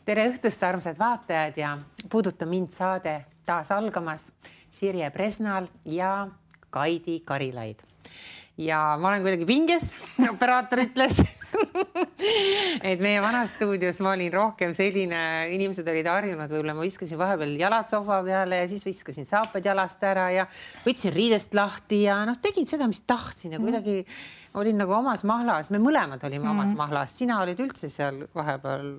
Tere õhtust, armsad vaatajad ja Puuduta mind saade taas algamas Sirje Presnal ja Kaidi Karilaid. Ja ma olen kuidagi pinges, operaator ütles, et meie vanas stuudios ma olin rohkem selline, inimesed olid harjunud, võib-olla ma viskasin vahepeal jalad sohva peale ja siis viskasin saapad jalast ära ja võtsin riidest lahti ja tegin seda, mis tahtsin ja kuidagi olin nagu omas mahlas. Me mõlemad olime omas mahlas. Sina olid üldse seal vahepeal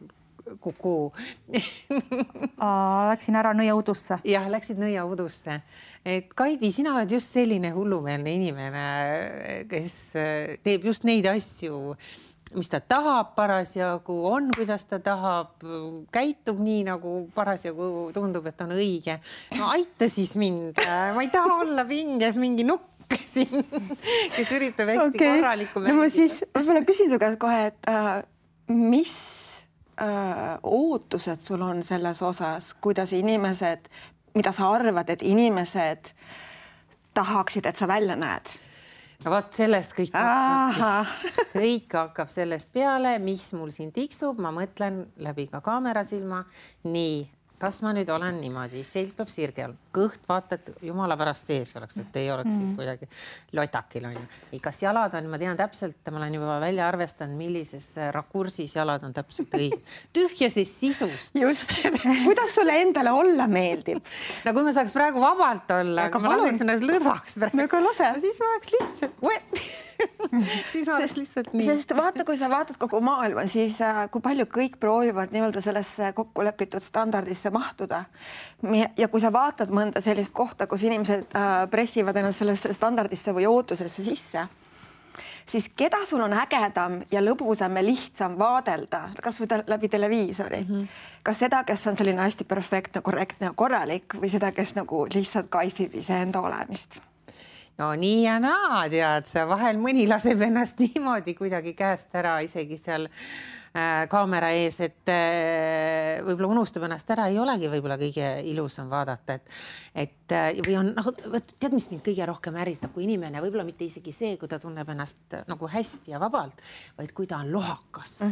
kuku. Läksin ära nõiaudusse. Jah, läksid nõiaudusse. Et Kaidi, sina oled just selline hullumeelne inimene, kes teeb just neid asju, mis ta tahab parasjagu, on, kuidas ta tahab, käitub nii, nagu parasjagu tundub, et on õige. No aita siis mind. Ma ei taha olla pinges mingi nukk siin, kes üritab hästi korralikku mängida. No ma siis võib-olla küsin su käest kohe, et mis ootused sul on selles osas, kuidas inimesed, mida sa arvad, et inimesed tahaksid, et sa välja näed? No vaat sellest kõik hakkab sellest peale, mis mul siin tiksub. Ma mõtlen läbi ka kaamerasilma. Nii, kas ma nüüd olen niimoodi? Selg peab sirge all. Kõht vaata, et jumala pärast sees oleks, et ei oleks kuidagi lotakil on ju. Kas jalad on, ma tean täpselt, ma olen juba välja arvestanud, millises rakursis jalad on täpselt õige. Tühjases sisust. Just. Kuidas sulle endale olla meeldib? No kui ma saaks praegu vabalt olla, aga ma laseks ennast lõdvaks praegu. Aga lase. Siis ma oleks lihtsalt, siis ma oleks lihtsalt nii. Sest vaata, kui sa vaatad kogu maailma, siis kui palju kõik proovivad nii-öelda sellesse kokkulepitud standardisse mahtuda. Ja kui sa vaatad mõnda sellist kohta, kus inimesed pressivad ennast sellesse standardisse või ootusesse sisse, siis keda sul on ägedam ja lõbusam ja lihtsam vaadelda, kas või läbi televiisori? Kas seda, kes on selline hästi perfektne, korrektne ja korralik või seda, kes nagu lihtsalt kaifib iseenda olemist? No nii ja naa, tead, sa vahel mõni laseb ennast niimoodi kuidagi käest ära isegi seal kaamera ees, et võib-olla unustab ennast ära, ei olegi võib-olla kõige ilusam vaadata, või on, tead, mis mind kõige rohkem ärritab, kui inimene, võib-olla mitte isegi see, kui ta tunneb ennast nagu hästi ja vabalt, vaid kui ta on lohakas.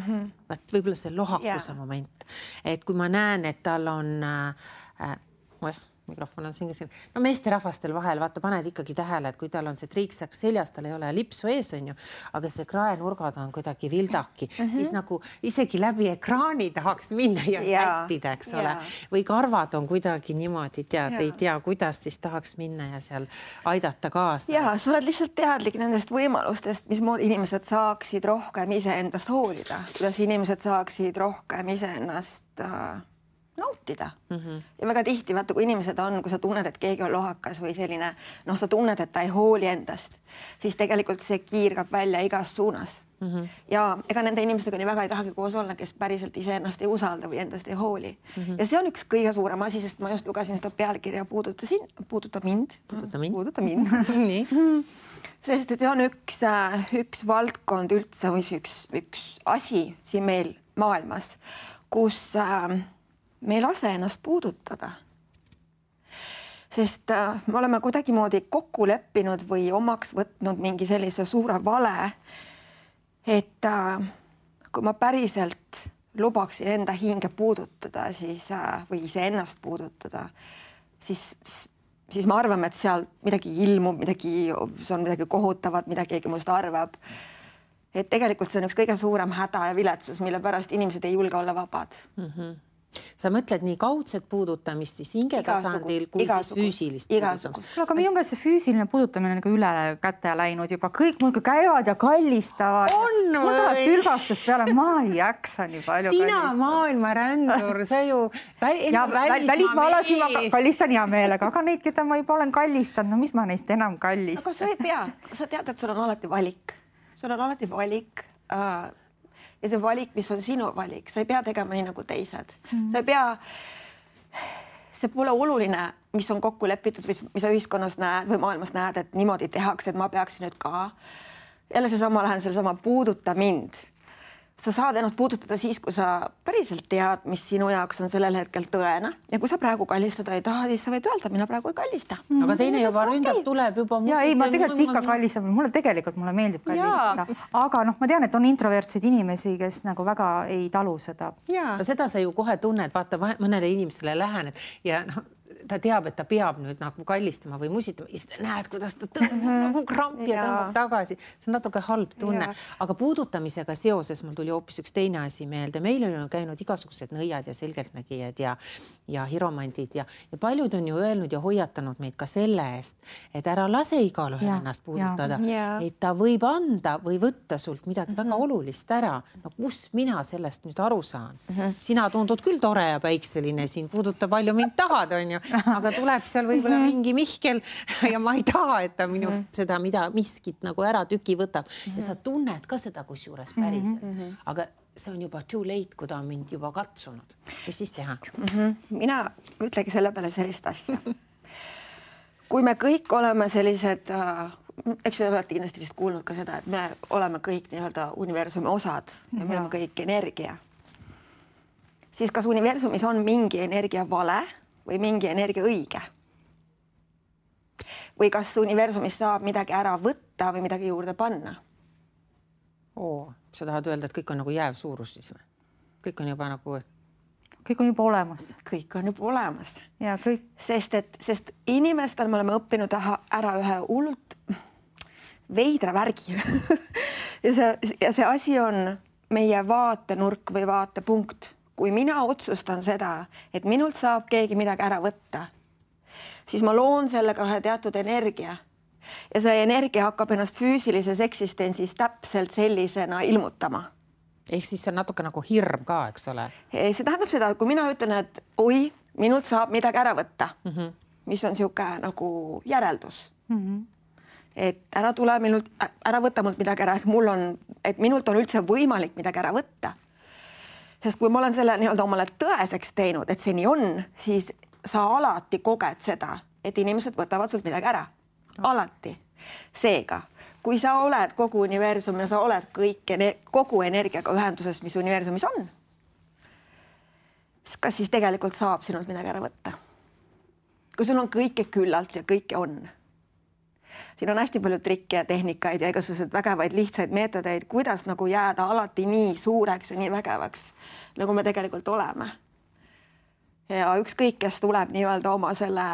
Võib-olla see lohakuse moment, et kui ma näen, et tal on mikrofon on siin. No meesterahvastel vahel, vaata, paned ikkagi tähele, et kui tal on see triiksak seljas, tal ei ole lipsu ees, on ju, aga see kraenurgad on kuidagi vildaki, siis nagu isegi läbi ekraani tahaks minna ja sättida, eks ole. Või karvad on kuidagi niimoodi, tead, ei tea, kuidas siis tahaks minna ja seal aidata kaasa. Ja, sa oled lihtsalt teadlik nendest võimalustest, mismoodi inimesed saaksid rohkem iseendast hoolida, kuidas inimesed saaksid rohkem iseennast nautida. Ja väga tihti, vaata, kui inimesed on, kui sa tunned, et keegi on lohakas või selline, sa tunned, et ta ei hooli endast, siis tegelikult see kiirgab välja igas suunas. Ja ega nende inimestega nii väga ei tahagi koos olla, kes päriselt iseennast ei usalda või endast ei hooli. Ja see on üks kõige suurem asi, sest ma just lugesin seda pealkirja Puuduta mind. Nii. Sest et see on üks valdkond üldse, üks asi siin meil maailmas, kus me ei lase ennast puudutada. Sest me oleme kuidagimoodi kokku leppinud või omaks võtnud mingi sellise suure vale, et kui ma päriselt lubaksin enda hinge puudutada või iseennast puudutada, siis ma arvan, et seal midagi ilmub, see on midagi kohutavat, mida keegi must arvab. Et tegelikult see on üks kõige suurem häda ja viletsus, mille pärast inimesed ei julge olla vabad. Sa mõtled nii kaudset puudutamist siis hingetasandil kui siis füüsilist puudutamist. Aga minu meelest see füüsiline puudutamine on nagu üle käte läinud juba. Kõik muidugi käivad ja kallistavad. On või? Tülvastust peale ma ei jaksa nii palju kallistada. Sina maailma rändur, sa ju välismaalasi ma kallistan hea meelega, aga neid, keda ma juba olen kallistanud, no mis ma neist enam kallistan? Aga sa ei pea. Sa tead, et sul on alati valik. Sul on alati valik. Ja see valik, mis on sinu valik, sa ei pea tegema nii nagu teised. Sa ei pea, see pole oluline, mis on kokku lepitud või mis sa ühiskonnas näed või maailmas näed, et niimoodi tehakse, et ma peaksin nüüd ka. Jälle seesama lähen sellesama puuduta mind. sa saad ennast puudutada siis, kui sa päriselt tead, mis sinu jaoks on sellel hetkel tõene. Ja kui sa praegu kallistada ei taha, siis sa võid öelda, mina praegu ei kallista. Aga teine juba ründab, tuleb juba... Ja ei, ma tegelikult ikka kallistan. Mulle meeldib kallistada. Aga ma tean, et on introvertseid inimesi, kes nagu väga ei talu seda. No seda sa ju kohe tunned, vaata mõnele inimesele lähened ja ta teab, et ta peab nüüd nagu kallistama või musitama ja siis näed, kuidas ta tõmbab nagu krampi ja tõmbab tagasi. See on natuke halb tunne. Aga puudutamisega seoses mul tuli hoopis üks teine asi meelde. Meil on käinud igasugused nõiad ja selgeltnägijad ja hiromandid ja paljud on ju öelnud ja hoiatanud meid ka selle eest, et ära lase igal ühel ennast puudutada. Et ta võib anda või võtta sult midagi väga olulist ära. No kus mina sellest nüüd aru saan? Sina tundud küll tore ja päikseline, siin puuduta palju mind tahad, on ju. Aga tuleb seal võib-olla mingi Mihkel ja ma ei taha, et ta minust seda miskit nagu ära tüki võtab. Ja sa tunned ka seda kusjuures päriselt. Aga see on juba too late, kui ta on mind juba katsunud. Mis siis teha? Mina ütlegi selle peale sellist asja. Kui me kõik oleme sellised, eks te olete kindlasti vist kuulnud ka seda, et me oleme kõik nii-öelda universumi osad ja me oleme kõik energia. Siis kas universumis on mingi energia vale või mingi energia õige? Või kas universumis saab midagi ära võtta või midagi juurde panna? Sa tahad öelda, et kõik on nagu jääv suurus siis või? Kõik on juba nagu... Kõik on juba olemas. Kõik on juba olemas. Ja kõik... Sest inimestel me oleme õppinud ära ühe hullult veidra värgi. ja see asi on meie vaatenurk või vaatepunkt. Kui mina otsustan seda, et minult saab keegi midagi ära võtta, siis ma loon sellega ühe teatud energia ja see energia hakkab ennast füüsilises eksistentsis täpselt sellisena ilmutama. Ehk siis see on natuke nagu hirm ka, eks ole? See tähendab seda, et kui mina ütlen, et oi, minult saab midagi ära võtta, mis on siuke nagu järeldus. Et ära tule minult, ära võtta mult midagi ära, et minult on üldse võimalik midagi ära võtta. Sest kui ma olen selle nii-öelda omale tõeseks teinud, et see nii on, siis sa alati koged seda, et inimesed võtavad sult midagi ära. Alati. Seega, kui sa oled kogu universum ja sa oled kogu energiaga ühenduses, mis universumis on, kas siis tegelikult saab sinult midagi ära võtta? Kui sul on kõike küllalt ja kõike on. Siin on hästi palju trikke ja tehnikaid ja igasugused vägevaid lihtsaid meetodeid, kuidas nagu jääda alati nii suureks ja nii vägevaks, nagu me tegelikult oleme. Ja ükskõik, kes tuleb nii-öelda oma selle,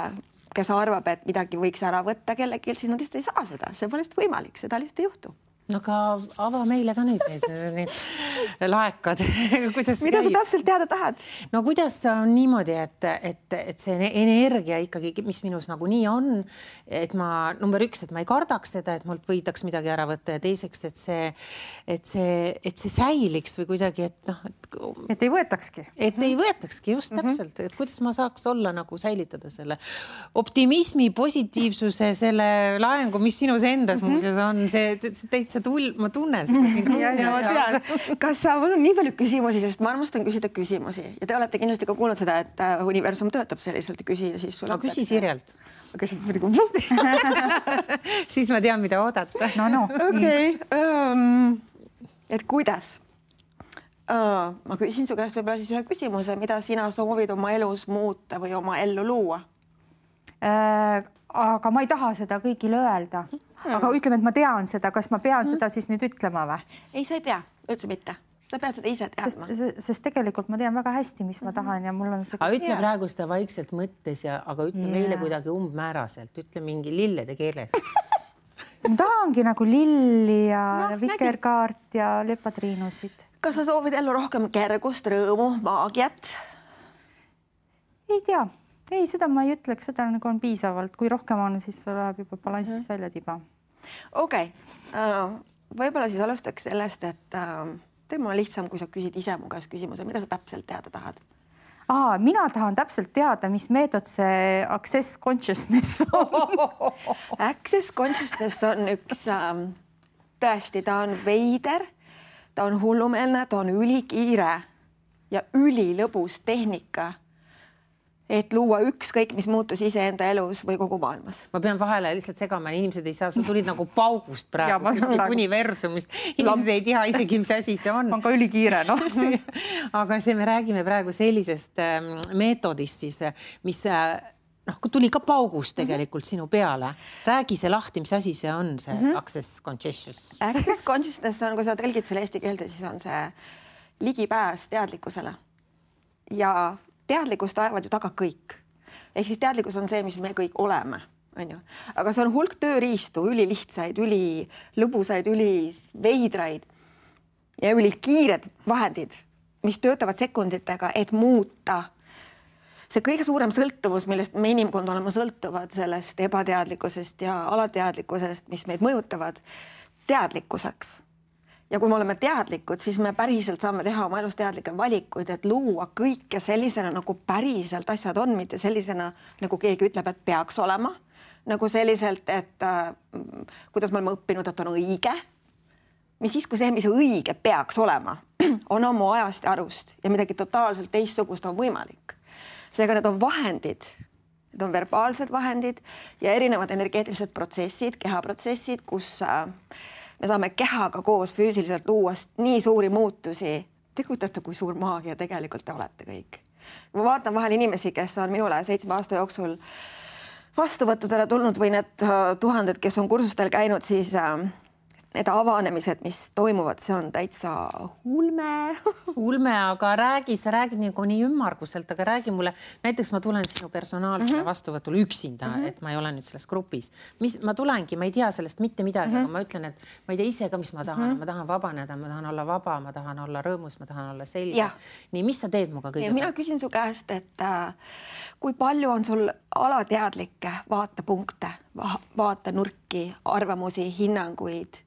kes arvab, et midagi võiks ära võtta kellelgi, siis nad lihtsalt ei saa seda. See pole lihtsalt võimalik, seda lihtsalt ei juhtu. Aga ava meile ka nüüd need laekad. Mida sa täpselt teada tahad? No kuidas on niimoodi, et see energia ikkagi, mis minus nagu nii on, et ma number 1, et ma ei kardaks seda, et mult võidaks midagi ära võtta ja teiseks, et see säiliks või kuidagi, et ei võetakski. Et ei võetakski, just täpselt. Et kuidas ma saaks olla nagu säilitada selle optimismi, positiivsuse, selle laengu, mis sinus endas muuseas on, see täitsa ma tunnen seda siin. Kas sa mul on nii palju küsimusi, sest ma armastan küsida küsimusi ja te olete kindlasti ka kuulnud seda, et universum töötab selliselt ja küsi ja siis sul küsi Sirjalt. Siis ma tean, mida oodata. Okei. Et kuidas? Ma küsin su käest võib-olla siis ühe küsimuse, mida sina soovid oma elus muuta või oma ellu luua? Aga ma ei taha seda kõigile öelda. Aga ütleme, et ma tean seda. Kas ma pean seda siis nüüd ütlema või? Ei, sa ei pea. Üldse mitte. Sa pead seda ise teadma. Sest tegelikult ma tean väga hästi, mis ma tahan ja mul on see... Aga ütle praegu seda vaikselt mõttes, aga ütle meile kuidagi umbmääraselt. Ütle mingi lillede keeles. Ma tahangi nagu lilli ja vikerkaart ja lepatriinusid. Kas sa soovid ellu rohkem kergust, rõõmu, maagiat? Ei tea. Ei, seda ma ei ütleks, seda nagu on piisavalt. Kui rohkem on, siis läheb juba balansist välja tiba. Okei. Võib-olla siis alustaks sellest, et teeme on lihtsam, kui sa küsid ise mu käest küsimuse, mida sa täpselt teada tahad? Mina tahan täpselt teada, mis meetod see Access Consciousness on. Access Consciousness on üks, tõesti, ta on veider, ta on hullumeelne, ta on ülikiire ja ülilõbus tehnika. et luua ükskõik, mis muutus iseenda elus või kogu maailmas. Ma pean vahele lihtsalt segama, inimesed ei saa, sa tulid nagu paugust praegu, universumist. Inimesed ei tea isegi, mis asi see on. On ka ülikiire, noh. Aga see me räägime praegu sellisest meetodist siis, mis kui tuli ka paugust tegelikult sinu peale. Räägi see lahti, mis asi see on, see access consciousness. Access consciousness on, kui sa tõlgid selle eesti keelde, siis on see ligipääs teadlikkusele. Ja teadlikkust ajavad ju taga kõik. Ehk siis teadlikkus on see, mis me kõik oleme. On ju? Aga see on hulk tööriistu, ülilihtsaid, ülilõbusaid, üliveidraid ja ülikiired vahendid, mis töötavad sekunditega, et muuta see kõige suurem sõltuvus, millest me inimkond oleme sõltuvad sellest ebateadlikkusest ja alateadlikkusest, mis meid mõjutavad, teadlikkuseks. Ja kui me oleme teadlikud, siis me päriselt saame teha oma elus teadlikke valikuid, et luua kõike sellisena, nagu päriselt asjad on, mitte sellisena, nagu keegi ütleb, et peaks olema. Nagu selliselt, et kuidas me oleme õppinud, et on õige. Mis siis, kui see, mis õige peaks olema, on oma ajast ja arust ja midagi totaalselt teistsugust on võimalik. Seega need on vahendid, need on verbaalsed vahendid ja erinevad energeetilised protsessid, kehaprotsessid, kus me saame kehaga koos füüsiliselt luua nii suuri muutusi. Te kujutate, kui suur maagia tegelikult te olete kõik. Ma vaatan vahel inimesi, kes on minule 7 aasta jooksul vastuvõttudele tulnud või need tuhanded, kes on kursustel käinud, siis need avanemised, mis toimuvad, see on täitsa ulme. Ulme, aga sa räägid nii ümmarguselt, aga räägi mulle, näiteks ma tulen sinu personaalsele vastuvõtule üksinda, et ma ei ole nüüd selles grupis. Ma tulengi, ma ei tea sellest mitte midagi, aga ma ütlen, et ma ei tea ise ka, mis ma tahan. Ma tahan vabaneda, ma tahan olla vaba, ma tahan olla rõõmus, ma tahan olla selge. Nii, mis sa teed muga kõige? Mina küsin su käest, et kui palju on sul alateadlikke vaatepunkte, vaatenurki, arvamusi, hinnanguid,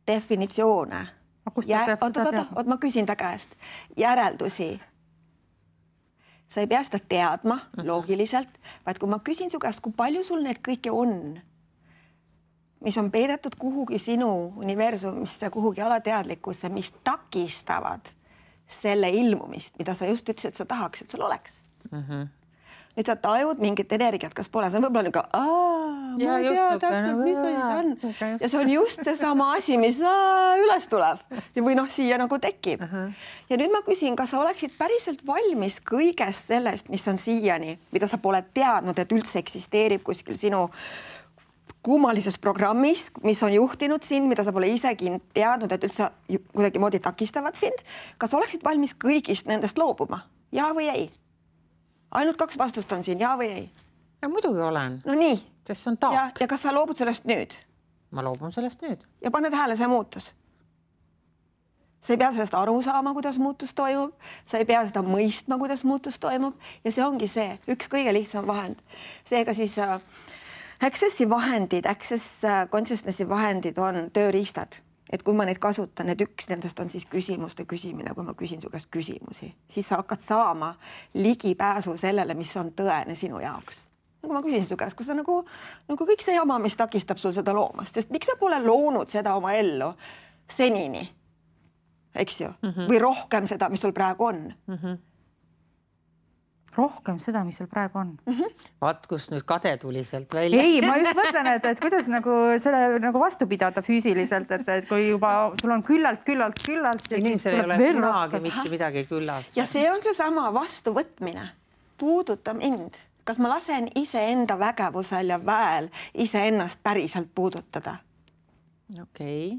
definitsioone. Ma küsin ta käest. Järeldusi. Sa ei pea seda teadma loogiliselt, vaid kui ma küsin su käest, kui palju sul need kõike on, mis on peidetud kuhugi sinu universumisse, kuhugi alateadlikkusse, mis takistavad selle ilmumist, mida sa just ütlesid, et sa tahaks, et sul oleks. Nüüd sa tajud mingit energiat, kas pole, see on võib-olla niisugune, ma ei tea täpselt, mis see on. Ja see on just see sama asi, mis üles tuleb või siia nagu tekib. Ja nüüd ma küsin, kas sa oleksid päriselt valmis kõigest sellest, mis on siiani, mida sa pole teadnud, et üldse eksisteerib kuskil sinu kummalises programmis, mis on juhtinud sind, mida sa pole isegi teadnud, et üldse kuidagi moodi takistavad sind. Kas oleksid valmis kõigist nendest loobuma? Ja või ei? Ainult 2 vastust on siin, ja või ei? Ja muidugi olen. No nii. Sest see on taak. Ja kas sa loobud sellest nüüd? Ma loobun sellest nüüd. Ja paned hääle, see muutus. Sa ei pea sellest aru saama, kuidas muutus toimub. Sa ei pea seda mõistma, kuidas muutus toimub. Ja see ongi see, üks kõige lihtsam vahend. Seega siis accessi vahendid, access consciousnessi vahendid on tööriistad. Et kui ma neid kasutan, et üks nendest on siis küsimuste küsimine, kui ma küsin su käest küsimusi, siis sa hakkad saama ligipääsu sellele, mis on tõene sinu jaoks. Nagu ma küsin su käest, kas see nagu kõik see jama, mis takistab sul seda loomast, sest miks sa pole loonud seda oma ellu senini, eks ju? Või rohkem seda, mis sul praegu on? Rohkem seda, mis sul praegu on. Vaat, kus nüüd kade tuli sealt välja. Ei, ma just mõtlen, et kuidas selle vastu pidada füüsiliselt, et kui juba sul on küllalt. Inimesel ei ole kunagi mitte midagi küllalt. Ja see on see sama vastuvõtmine. Puuduta mind. Kas ma lasen iseenda vägevusel ja väel iseennast päriselt puudutada? Okei.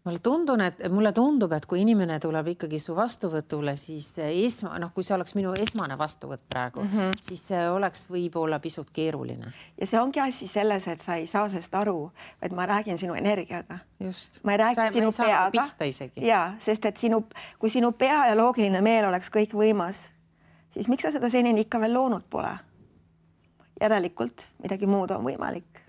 Mulle tundub, et kui inimene tuleb ikkagi su vastuvõtule, siis kui see oleks minu esmane vastuvõtt praegu, siis see oleks võib-olla pisut keeruline. Ja see ongi asi selles, et sa ei saa sellest aru, et ma räägin sinu energiaga. Just. Ma ei räägi sinu peaga. Ja, sest et kui sinu pea ja loogiline meel oleks kõik võimas, siis miks sa seda senini ikka veel loonud pole? Järelikult midagi muud on võimalik.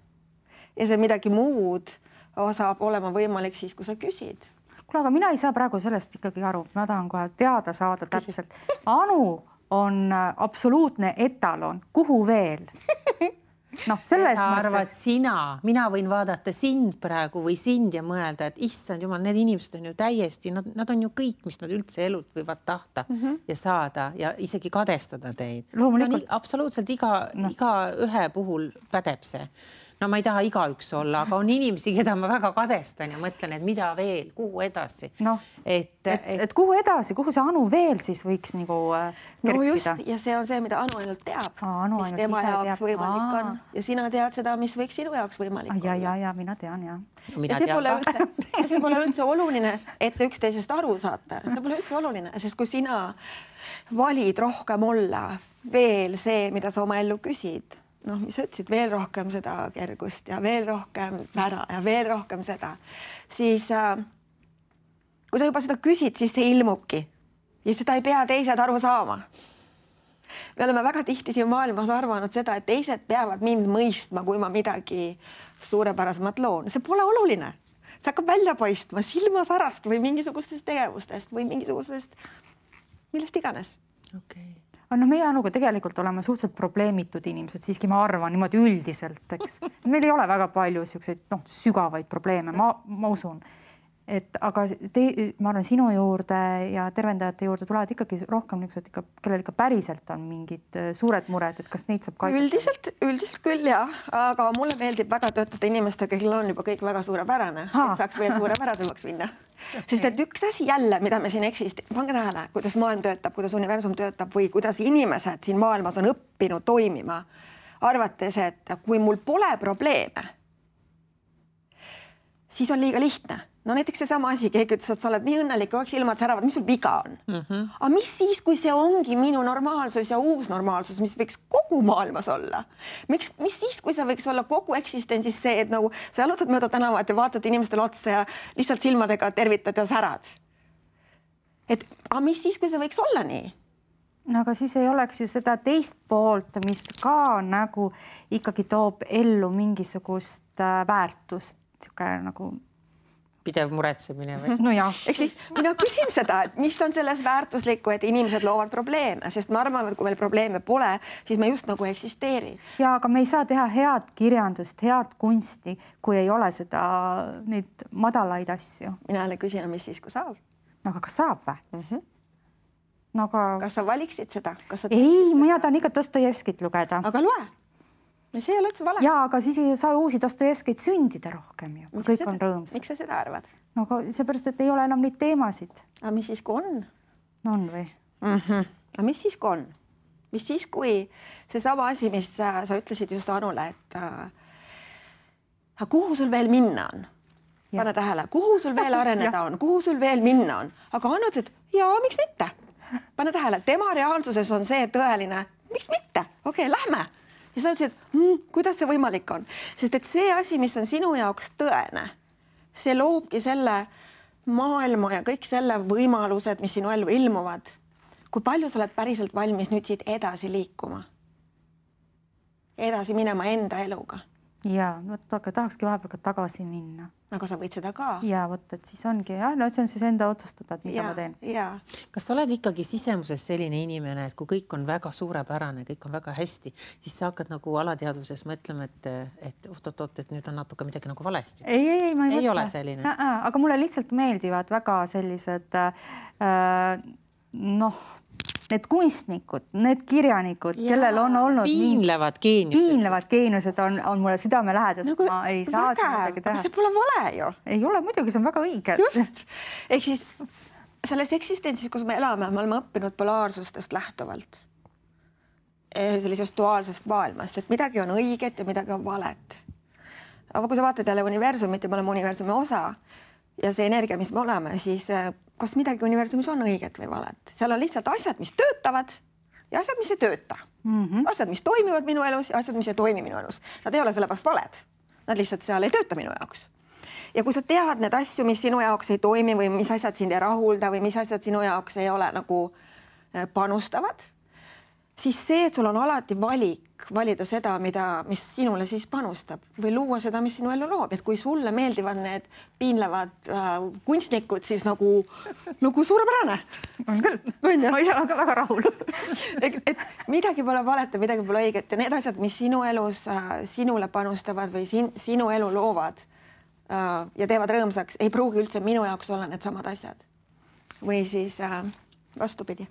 Ja see midagi muud saab olema võimalik siis, kui sa küsid. Kuule, aga mina ei saa praegu sellest ikkagi aru. Ma tahan kohe teada saada täpselt. Anu on absoluutne etalon. Kuhu veel? noh, selles arvad sina, mina võin vaadata sind praegu või sind ja mõelda, et issand jumal, need inimesed on ju täiesti, nad on ju kõik, mis nad üldse elult võivad tahta ja saada ja isegi kadestada teid. Loomulikult. Absoluutselt iga ühe puhul pädeb see. No ma ei taha igaüks olla, aga on inimesi, keda ma väga kadestan ja mõtlen, et mida veel, kuhu edasi. No, et kuhu edasi, kuhu see Anu veel siis võiks nagu kerkida? No just, ja see on see, mida Anu ainult teab, mis tema jaoks võimalik on. Ja sina tead seda, mis võiks sinu jaoks võimalik olla. Ja, mina tean, ja. Ja see pole üldse oluline, et üksteisest aru saata. See pole üldse oluline, sest kui sina valid rohkem olla veel see, mida sa oma ellu küsid, noh, mis sa ütlesid, veel rohkem seda kergust ja veel rohkem sära ja veel rohkem seda, siis kui sa juba seda küsid, siis see ilmubki ja seda ei pea teised aru saama. Me oleme väga tihti siin maailmas arvanud seda, et teised peavad mind mõistma, kui ma midagi suurepärasemat loon. See pole oluline. See hakkab välja paistma silmasarast või mingisugustest tegevustest või mingisugustest millest iganes. Okay. No meie Anuga tegelikult oleme suhteliselt probleemitud inimesed, siiski ma arvan niimoodi üldiselt, eks. Meil ei ole väga palju siukseid sügavaid probleeme, ma usun. Aga ma arvan, sinu juurde ja tervendajate juurde tulevad ikkagi rohkem niisugused, kellel ikka päriselt on mingid suured mured, et kas neid saab kaitsta? Üldiselt küll, jah. Aga mulle meeldib väga töötada inimestega, kellel on juba kõik väga suurepärane, et saaks veel suurepärasemaks minna. Sest et üks asi jälle, mida me siin pange tähele, kuidas maailm töötab, kuidas universum töötab või kuidas inimesed siin maailmas on õppinud toimima, arvates, et kui mul pole probleeme, siis on liiga lihtne. No näiteks seesama asi, keegi ütles, et sa oled nii õnnelik, kõik silmad säravad, mis sul viga on? Aga mis siis, kui see ongi minu normaalsus ja uus normaalsus, mis võiks kogu maailmas olla? Mis siis, kui see võiks olla kogu eksistentsis see, et nagu sa jalutad mööda tänavat ja vaatad inimestele otsa ja lihtsalt silmadega tervitad ja särad? Aga mis siis, kui see võiks olla nii? No aga siis ei oleks ju seda teist poolt, mis ka nagu ikkagi toob ellu mingisugust väärtust, nagu pidev muretsemine või? No jah. Ehk siis mina küsin seda, et mis on selles väärtuslikku, et inimesed loovad probleeme, sest ma arvan, et kui meil probleeme pole, siis me just nagu eksisteeri. Ja, aga me ei saa teha head kirjandust, head kunsti, kui ei ole neid madalaid asju. Mina jälle küsin, mis siis, kui saab? No aga kas saab või? No aga... Kas sa valiksid seda? Ei, mina tahan ikka Dostojevskit lugeda. Aga loe. See ei ole üldse vale. Ja, aga siis ei saa uusi Dostojevskeid sündida rohkem ju, kui kõik on rõõmsad. Miks sa seda arvad? No aga seepärast, et ei ole enam neid teemasid. Aga mis siis, kui on? No on või? Aga mis siis, kui on? Mis siis, kui see sama asi, mis sa ütlesid just Anule, et kuhu sul veel minna on? Pane tähele, kuhu sul veel areneda on? Kuhu sul veel minna on? Aga Anu ütles, et jaa, miks mitte? Pane tähele, tema reaalsuses on see tõeline, miks mitte? Okei, lähme. Ja sa ütlesid, kuidas see võimalik on? Sest et see asi, mis on sinu jaoks tõene, see loobki selle maailma ja kõik selle võimalused, mis sinu ellu ilmuvad. Kui palju sa oled päriselt valmis nüüd siit edasi liikuma? Edasi minema enda eluga? Ja, aga tahakski vahepeal ka tagasi minna. Aga sa võid seda ka. Ja, et siis ongi, no see on siis enda otsustada, et mida ma teen. Kas sa oled ikkagi sisemuses selline inimene, et kui kõik on väga suurepärane, kõik on väga hästi, siis sa hakkad nagu alateadvuses mõtlema, et et nüüd on natuke midagi nagu valesti? Ei, ma ei mõtle. Ole selline. Aga mulle lihtsalt meeldivad väga sellised need kunstnikud, need kirjanikud, kellel on olnud piinlevad geeniused on mulle südamelähedased. No, ma ei saa midagi teha. See pole vale ju. Ei ole, muidugi, see on väga õige. Just. Ehk siis selles eksistentsis, kus me elame oleme õppinud polaarsustest lähtuvalt. Sellisest duaalsest maailmast, et midagi on õiget ja midagi on valet. Aga kui sa vaatad jälle universumit ja me oleme universumi osa ja see energia, mis me oleme, siis kas midagi universumis on õiget või valet. Seal on lihtsalt asjad, mis töötavad ja asjad, mis ei tööta. Asjad, mis toimivad minu elus ja asjad, mis ei toimi minu elus. Nad ei ole sellepärast valed. Nad lihtsalt seal ei tööta minu jaoks. Ja kui sa tead need asju, mis sinu jaoks ei toimi või mis asjad sind ei rahulda või mis asjad sinu jaoks ei ole nagu panustavad, siis see, et sul on alati valik valida seda, mis sinule siis panustab või luua seda, mis sinu ellu loob, et kui sulle meeldivad need piinlevad kunstnikud, siis nagu suurepärane. On küll, ma ise olen ka väga rahul. et midagi pole valet ja midagi pole õiget ja need asjad, mis sinu elus sinule panustavad või sinu elu loovad ja teevad rõõmsaks, ei pruugi üldse minu jaoks olla need samad asjad. Või siis vastupidi.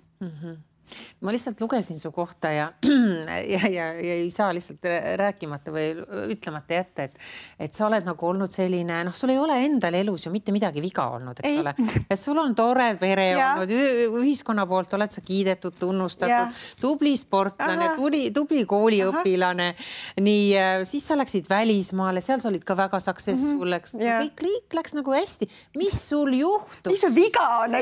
Ma lihtsalt lugesin su kohta ja ei saa lihtsalt rääkimata või ütlemata jätta, et sa oled nagu olnud selline, sul ei ole endal elus ju mitte midagi viga olnud, eks ole. Et sul on tore pere olnud, ühiskonna poolt oled sa kiidetud, tunnustatud, tubli sportlane, tubli kooliõpilane. Nii, siis sa läksid välismaale, seal sa olid ka väga successful, eks. Kõik läks nagu hästi. Mis sul juhtus? Mis sul viga on?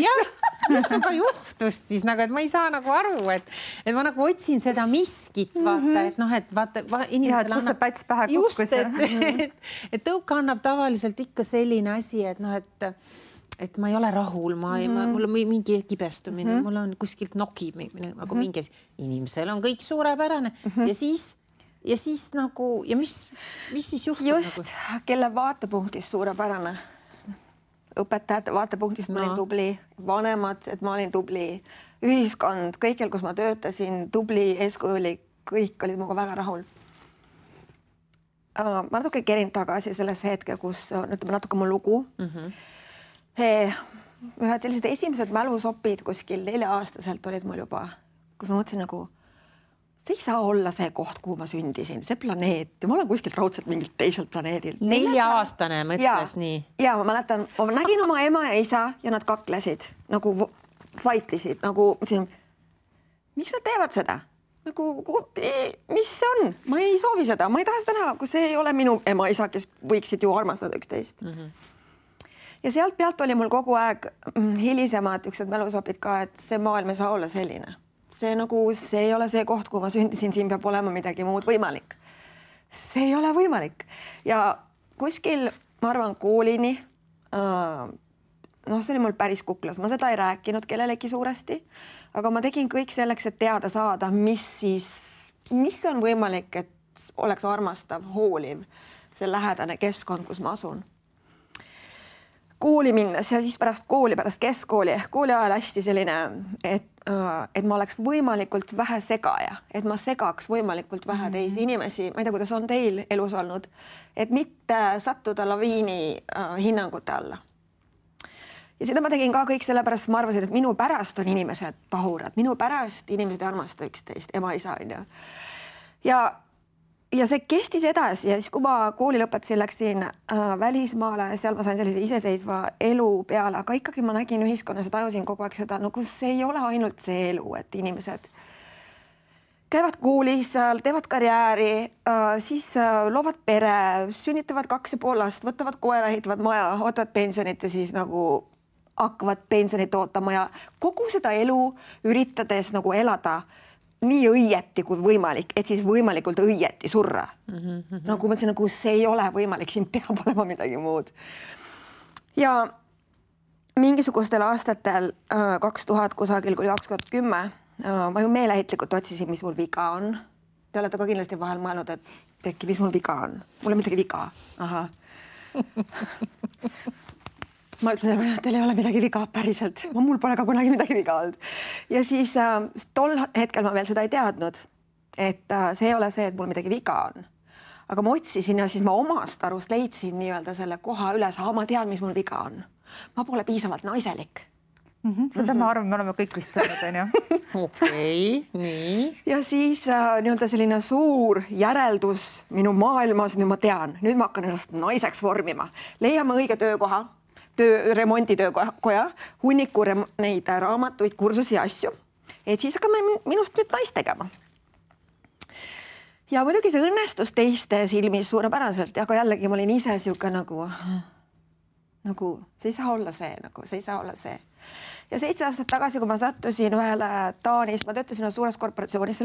Mis sul ka juhtus siis, et ma ei saa nagu aru, et ma nagu otsin seda miskit, vaata, et vaata, inimesele annab päts pähe kukkus. Et tõuka annab tavaliselt ikka selline asi, et ma ei ole rahul, mul on mingi kibestumine, mul on kuskilt nokib nagu mingi asi. Inimesel on kõik suurepärane ja siis nagu, ja mis siis juhtub? Just, kelle vaatepunktist suurepärane. Õpetajate vaatepunktist ma olin tubli, vanemad, et ma olin tubli, ühiskond, kõikjal, kus ma töötasin, tubli, eeskujulik, kõik olid minuga väga rahul. Ma natuke kerin tagasi selles hetke, kus ütleme natuke mu lugu. Ühed sellised esimesed mälusopid kuskil 4-aastaselt olid mul juba, kus ma mõtlesin nagu, see ei saa olla see koht, kuhu ma sündisin, see planeet. Ja ma olen kuskilt raudselt mingilt teiselt planeedilt. 4-aastane mõtles nii? Ja ma mäletan, ma nägin oma ema ja isa ja nad kaklesid, nagu fightisid, nagu miks nad teevad seda? Nagu, mis see on? Ma ei soovi seda, ma ei taha seda näha, kui see ei ole minu ema ja isa, kes võiksid ju armastada üksteist. Ja sealt pealt oli mul kogu aeg hilisemad üksed mälusopid ka, et see maailm ei saa olla selline. See ei ole see koht, kuhu ma sündisin, siin peab olema midagi muud võimalik. See ei ole võimalik. Ja kuskil, ma arvan, koolini, see oli mul päris kuklas, ma seda ei rääkinud kellelegi suuresti, aga ma tegin kõik selleks, et teada saada, mis on võimalik, et oleks armastav, hooliv, see lähedane keskkond, kus ma asun. Kooli minnes ja siis pärast kooli, pärast keskkooli, kooli ajal hästi selline, et ma oleks võimalikult vähe segaja, et ma segaks võimalikult vähe teisi inimesi, ma ei tea, kuidas on teil elus olnud, et mitte sattuda laviini hinnangute alla. Ja seda ma tegin ka kõik sellepärast, ma arvasin, et minu pärast on inimesed pahurad, minu pärast inimesed ei armasta üksteist, ema, isa on ju. Ja see kestis edasi ja siis, kui ma kooli lõpetasin, läksin välismaale, seal ma sain sellise iseseisva elu peale, aga ikkagi ma nägin ühiskonnas ja tajusin kogu aeg seda, nagu see ei ole ainult see elu, et inimesed käivad koolis, teevad karjääri, siis loovad pere, sünnitavad 2,5 last, võtavad koera, ehitavad maja, ootavad pensionit ja siis nagu hakkavad pensionit ootama ja kogu seda elu üritades nagu elada nii õieti kui võimalik, et siis võimalikult õieti surra. Nagu mõtlesin, nagu see ei ole võimalik, siin peab olema midagi muud. Ja mingisugustel aastatel 2000 kusagil kuni 2010 ma ju meeleheitlikult otsisin, mis mul viga on. Te olete ka kindlasti vahel mõelnud, et äkki, mis mul viga on. Mul on midagi viga. Aha. Ma ütlen, teil ei ole midagi viga päriselt. Mul pole ka kunagi midagi viga olnud. Ja siis tol hetkel ma veel seda ei teadnud, et see ei ole see, et mul midagi viga on. Aga ma otsisin ja siis ma omast arust leidsin nii-öelda selle koha üles, ma tean, mis mul viga on. Ma pole piisavalt naiselik. Seda ma arvan, me oleme kõik vist öelnud, on ju? Okei, nii. Ja siis nii-öelda selline suur järeldus minu maailmas, nüüd ma tean, nüüd ma hakkan ennast naiseks vormima. Leiame õige töökoha. Remonditöökoja, hunniku neid raamatuid, kursusi ja asju, et siis hakkame minust nüüd naist tegema. Ja muidugi see õnnestus teiste silmis suurepäraselt, aga jällegi ma olin ise siuke nagu see ei saa olla see, see ei saa olla see. Ja 7 aastat tagasi, kui ma sattusin ühele Taanis, ma töötasin suures korporatsioonis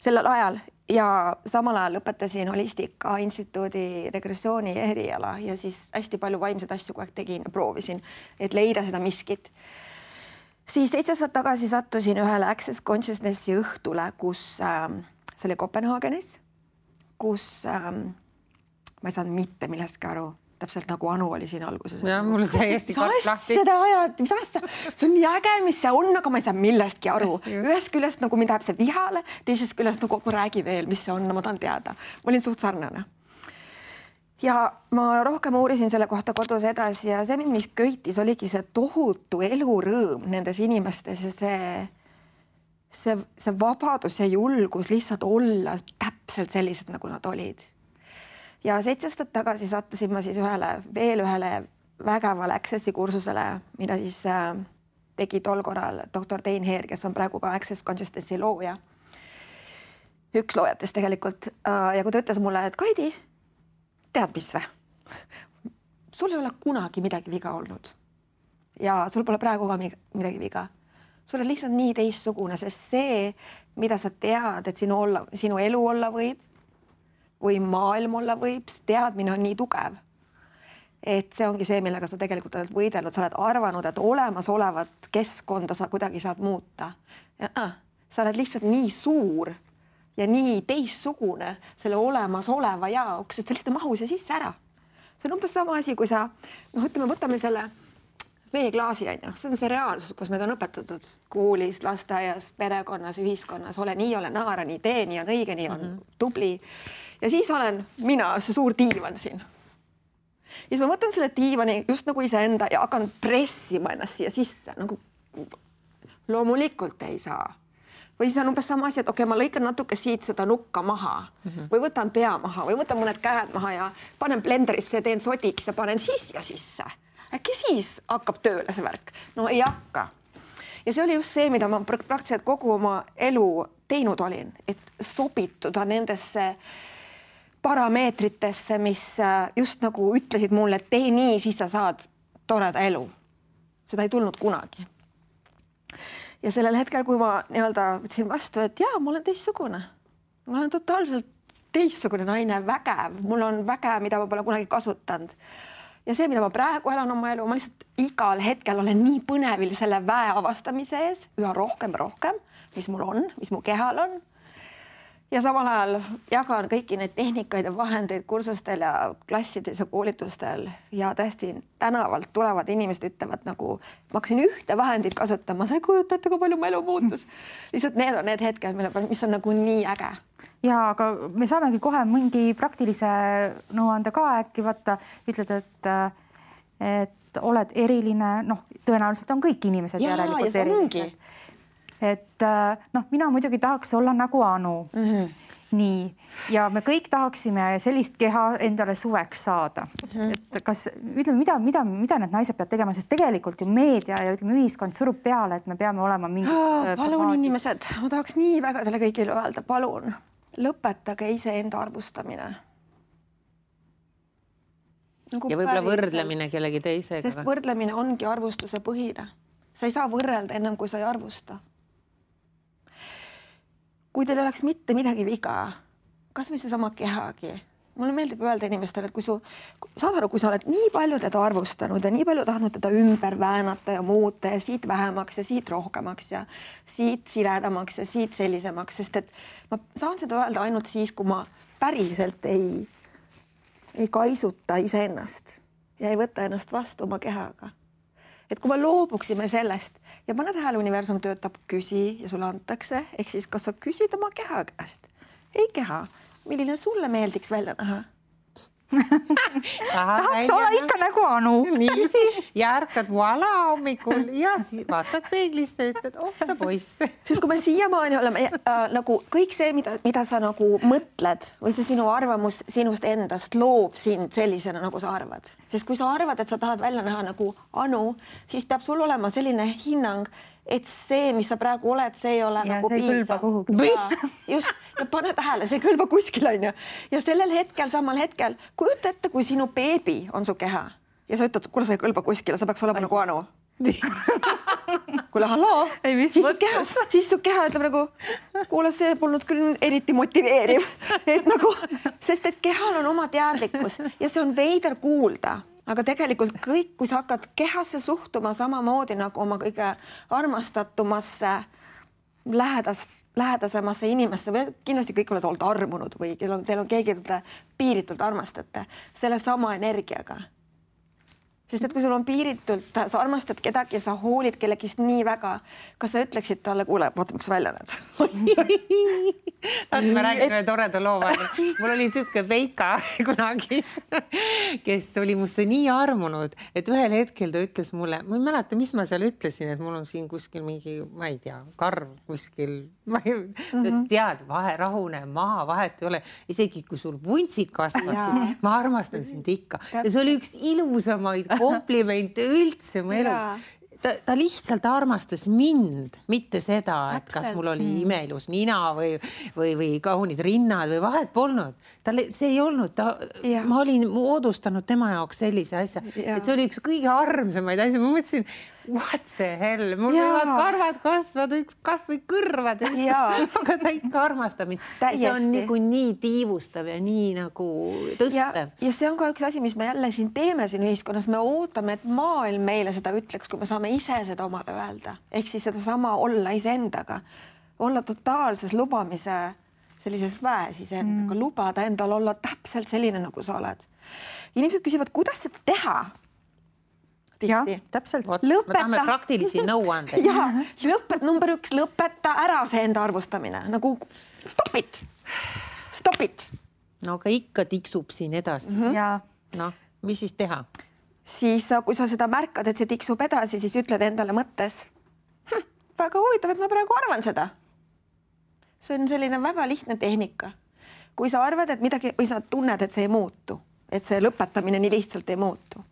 sellel ajal ja samal ajal lõpetasin Holistika Instituudi regressiooni eriala ja siis hästi palju vaimseid asju kogu aeg tegin ja proovisin, et leida seda miskit. Siis 7 aastat tagasi sattusin ühele Access Consciousnessi õhtule, kus see oli Kopenhaagenis, kus ma ei saanud mitte millestki aru, täpselt nagu Anu oli siin alguses. Ja mul täiesti karp lahti. Seda ajad, mis asja, see on nii äge, mis see on, aga ma ei saa millestki aru. Ühest küljest nagu mind läheb see vihale, teisest küljest nagu räägi veel, mis see on, ma tahan teada. Ma olin suht sarnane. Ja ma rohkem uurisin selle kohta kodus edasi ja see, mis köitis, oligi see tohutu elurõõm nendes inimestes ja see vabadus ja julgus lihtsalt olla täpselt sellised, nagu nad olid. Ja 7 aastat tagasi sattusin ma siis veel ühele vägevale Accessi kursusele, mida siis tegi tol korral doktor Tein Heer, kes on praegu ka Access Consciousnessi looja. Üks loojatest tegelikult. Ja kui ta ütles mulle, et Kaidi, tead mis või? Sul ei ole kunagi midagi viga olnud. Ja sul pole praegu ka midagi viga. Sul on lihtsalt nii teistsugune, sest see, mida sa tead, et sinu elu olla võib, või maailm olla võib, teadmine on nii tugev. Et see ongi see, millega sa tegelikult oled võidelnud. Sa oled arvanud, et olemasolevat keskkonda sa kuidagi saad muuta. Sa oled lihtsalt nii suur ja nii teistsugune selle olemasoleva jaoks, et sa lihtsalt mahus ja sisse ära. See on umbes sama asi, kui sa, võtame selle veeklaasi, see on see reaalsus, kus meid on õpetatud koolis, lasteaias, perekonnas, ühiskonnas, ole nii, ole naara, nii tee, nii on õige, nii on tubli. Ja siis olen mina, see suur diivan siin. Ja siis ma võtan selle diivani just nagu iseenda ja hakkan pressima ennast siia sisse. Nagu loomulikult ei saa. Või siis on umbes sama asi, et ma lõikan natuke siit seda nukka maha või võtan pea maha või võtan mõned käed maha ja panen blenderisse ja teen sodiks ja panen siia sisse. Äkki siis hakkab tööle see värk? No ei hakka. Ja see oli just see, mida ma praktiliselt kogu oma elu teinud olin, et sobituda nendesse parameetritesse, mis just nagu ütlesid mulle, et tee nii, siis sa saad toreda elu. Seda ei tulnud kunagi. Ja sellel hetkel, kui ma võtsin vastu, et jaa, ma olen teistsugune. Ma olen totaalselt teistsugune naine, vägev. Mul on väge, mida ma pole kunagi kasutanud. Ja see, mida ma praegu elan oma elu, ma lihtsalt igal hetkel olen nii põnevil selle väe avastamise ees, üha rohkem, mis mul on, mis mu kehal on. Ja samal ajal jagan kõiki neid tehnikaid ja vahendeid kursustel ja klassides ja koolitustel ja tõesti tänavalt tulevad inimesed ütlevad nagu, ma hakkasin ühte vahendit kasutama, sa ei kujuta ette, kui palju mu elu muutus. Lihtsalt need on need hetked, mis on nagu nii äge. Ja aga me saamegi kohe mingi praktilise nõuande ka äkki võtta, ütled, et oled eriline, tõenäoliselt on kõik inimesed järelikult erilised. Et mina muidugi tahaks olla nagu Anu. Nii. Ja me kõik tahaksime sellist keha endale suveks saada. Et kas, ütleme, mida need naised peavad tegema, sest tegelikult ju meedia ja ühiskond surub peale, et me peame olema mingis palun inimesed, ma tahaks nii väga teile kõigile öelda, palun, lõpetage iseenda arvustamine. Ja võib-olla võrdlemine kellegi teisega. Sest võrdlemine ongi arvustuse põhine. Sa ei saa võrrelda ennem, kui sa ei arvusta. Kui teil oleks mitte midagi viga, kas või see sama kehagi. Mulle meeldib öelda inimestele, et kui sa oled nii palju teda arvustanud ja nii palju tahtnud teda ümber väänata ja muuta ja siit vähemaks ja siit rohkemaks ja siit siledamaks ja siit sellisemaks, sest et ma saan seda öelda ainult siis, kui ma päriselt ei kaisuta iseennast ja ei võta ennast vastu oma kehaga. Et kui me loobuksime sellest ja pane tähele, universum töötab küsi ja sulle antakse, ehk siis kas sa küsid oma keha käest? Ei keha, milline sulle meeldiks välja näha? Tahaks olla ikka nagu Anu. Nii, ja ärkad voila hommikul ja vaatad peeglisse ja ütled, sa poiss. Siis kui me siiamaani oleme nagu kõik see, mida sa nagu mõtled või see sinu arvamus sinust endast loob sind sellisena, nagu sa arvad. Sest kui sa arvad, et sa tahad välja näha nagu Anu, siis peab sul olema selline hinnang, et see, mis sa praegu oled, see ei ole nagu piisav. Just, ja pane tähele, see kõlba kuskil on ju. Ja sellel hetkel, samal hetkel, kujuta ette, kui sinu beebi on su keha ja sa ütled, kuule, sa ei kõlba kuskile, sa peaks olema nagu Anu. Kuule, halloo, siis su keha ütleb nagu, kuule, see polnud küll eriti motiveeriv. Et nagu, sest et kehal on oma teadlikkus ja see on veider kuulda. Aga tegelikult kõik, kui sa hakkad kehasse suhtuma samamoodi nagu oma kõige armastatumasse lähedasemasse inimesse või kindlasti kõik oled olnud armunud või teil on keegi, keda piiritult armastate selle sama energiaga. Sest et kui sul on piiritult, sa armastad kedagi ja sa hoolid kellegist nii väga, kas sa ütleksid talle, kuule, vaata, miks välja need? Ma räägin ühe toreda loo. Mul oli siuke Veika kunagi, kes oli musse nii armunud, et ühel hetkel ta ütles mulle, ma ei mäleta, mis ma seal ütlesin, et mul on siin kuskil mingi, ma ei tea, karv kuskil, tead, rahune maha, vahet ei ole. Isegi kui sul vuntsid kasvaksid, ma armastan sind ikka. Ja see oli üks ilusamaid komplimente üldse mu elus. Ta lihtsalt armastas mind, mitte seda, et kas mul oli imeilus nina või kaunid rinnad või vahet polnud. See ei olnud, ma olin moodustanud tema jaoks sellise asja, et see oli üks kõige armsamaid asja. Ma mõtlesin, what the hell, mul võivad karvad kasvada, üks kasvõi kõrvades, aga ta ikka armastab mind. See on nagu nii tiivustav ja nii nagu tõstev. Ja see on ka üks asi, mis me jälle siin teeme siin ühiskonnas. Me ootame, et maailm meile seda ütleks, kui me saame ise seda omale öelda. Ehk siis seda sama olla iseendaga. Olla totaalses lubamise sellises väes iseendaga. Lubada endal olla täpselt selline, nagu sa oled. Inimesed küsivad, kuidas seda teha? Ja, täpselt. Me tahame praktilisi nõuandeid. Number 1, lõpeta ära see enda arvustamine. Nagu stop it. No aga ikka tiksub siin edasi. No, mis siis teha? Siis, kui sa seda märkad, et see tiksub edasi, siis ütled endale mõttes. Väga huvitav, et ma praegu arvan seda. See on selline väga lihtne tehnika. Kui sa arvad, et midagi, või sa tunned, et see ei muutu, et see lõpetamine nii lihtsalt ei muutu,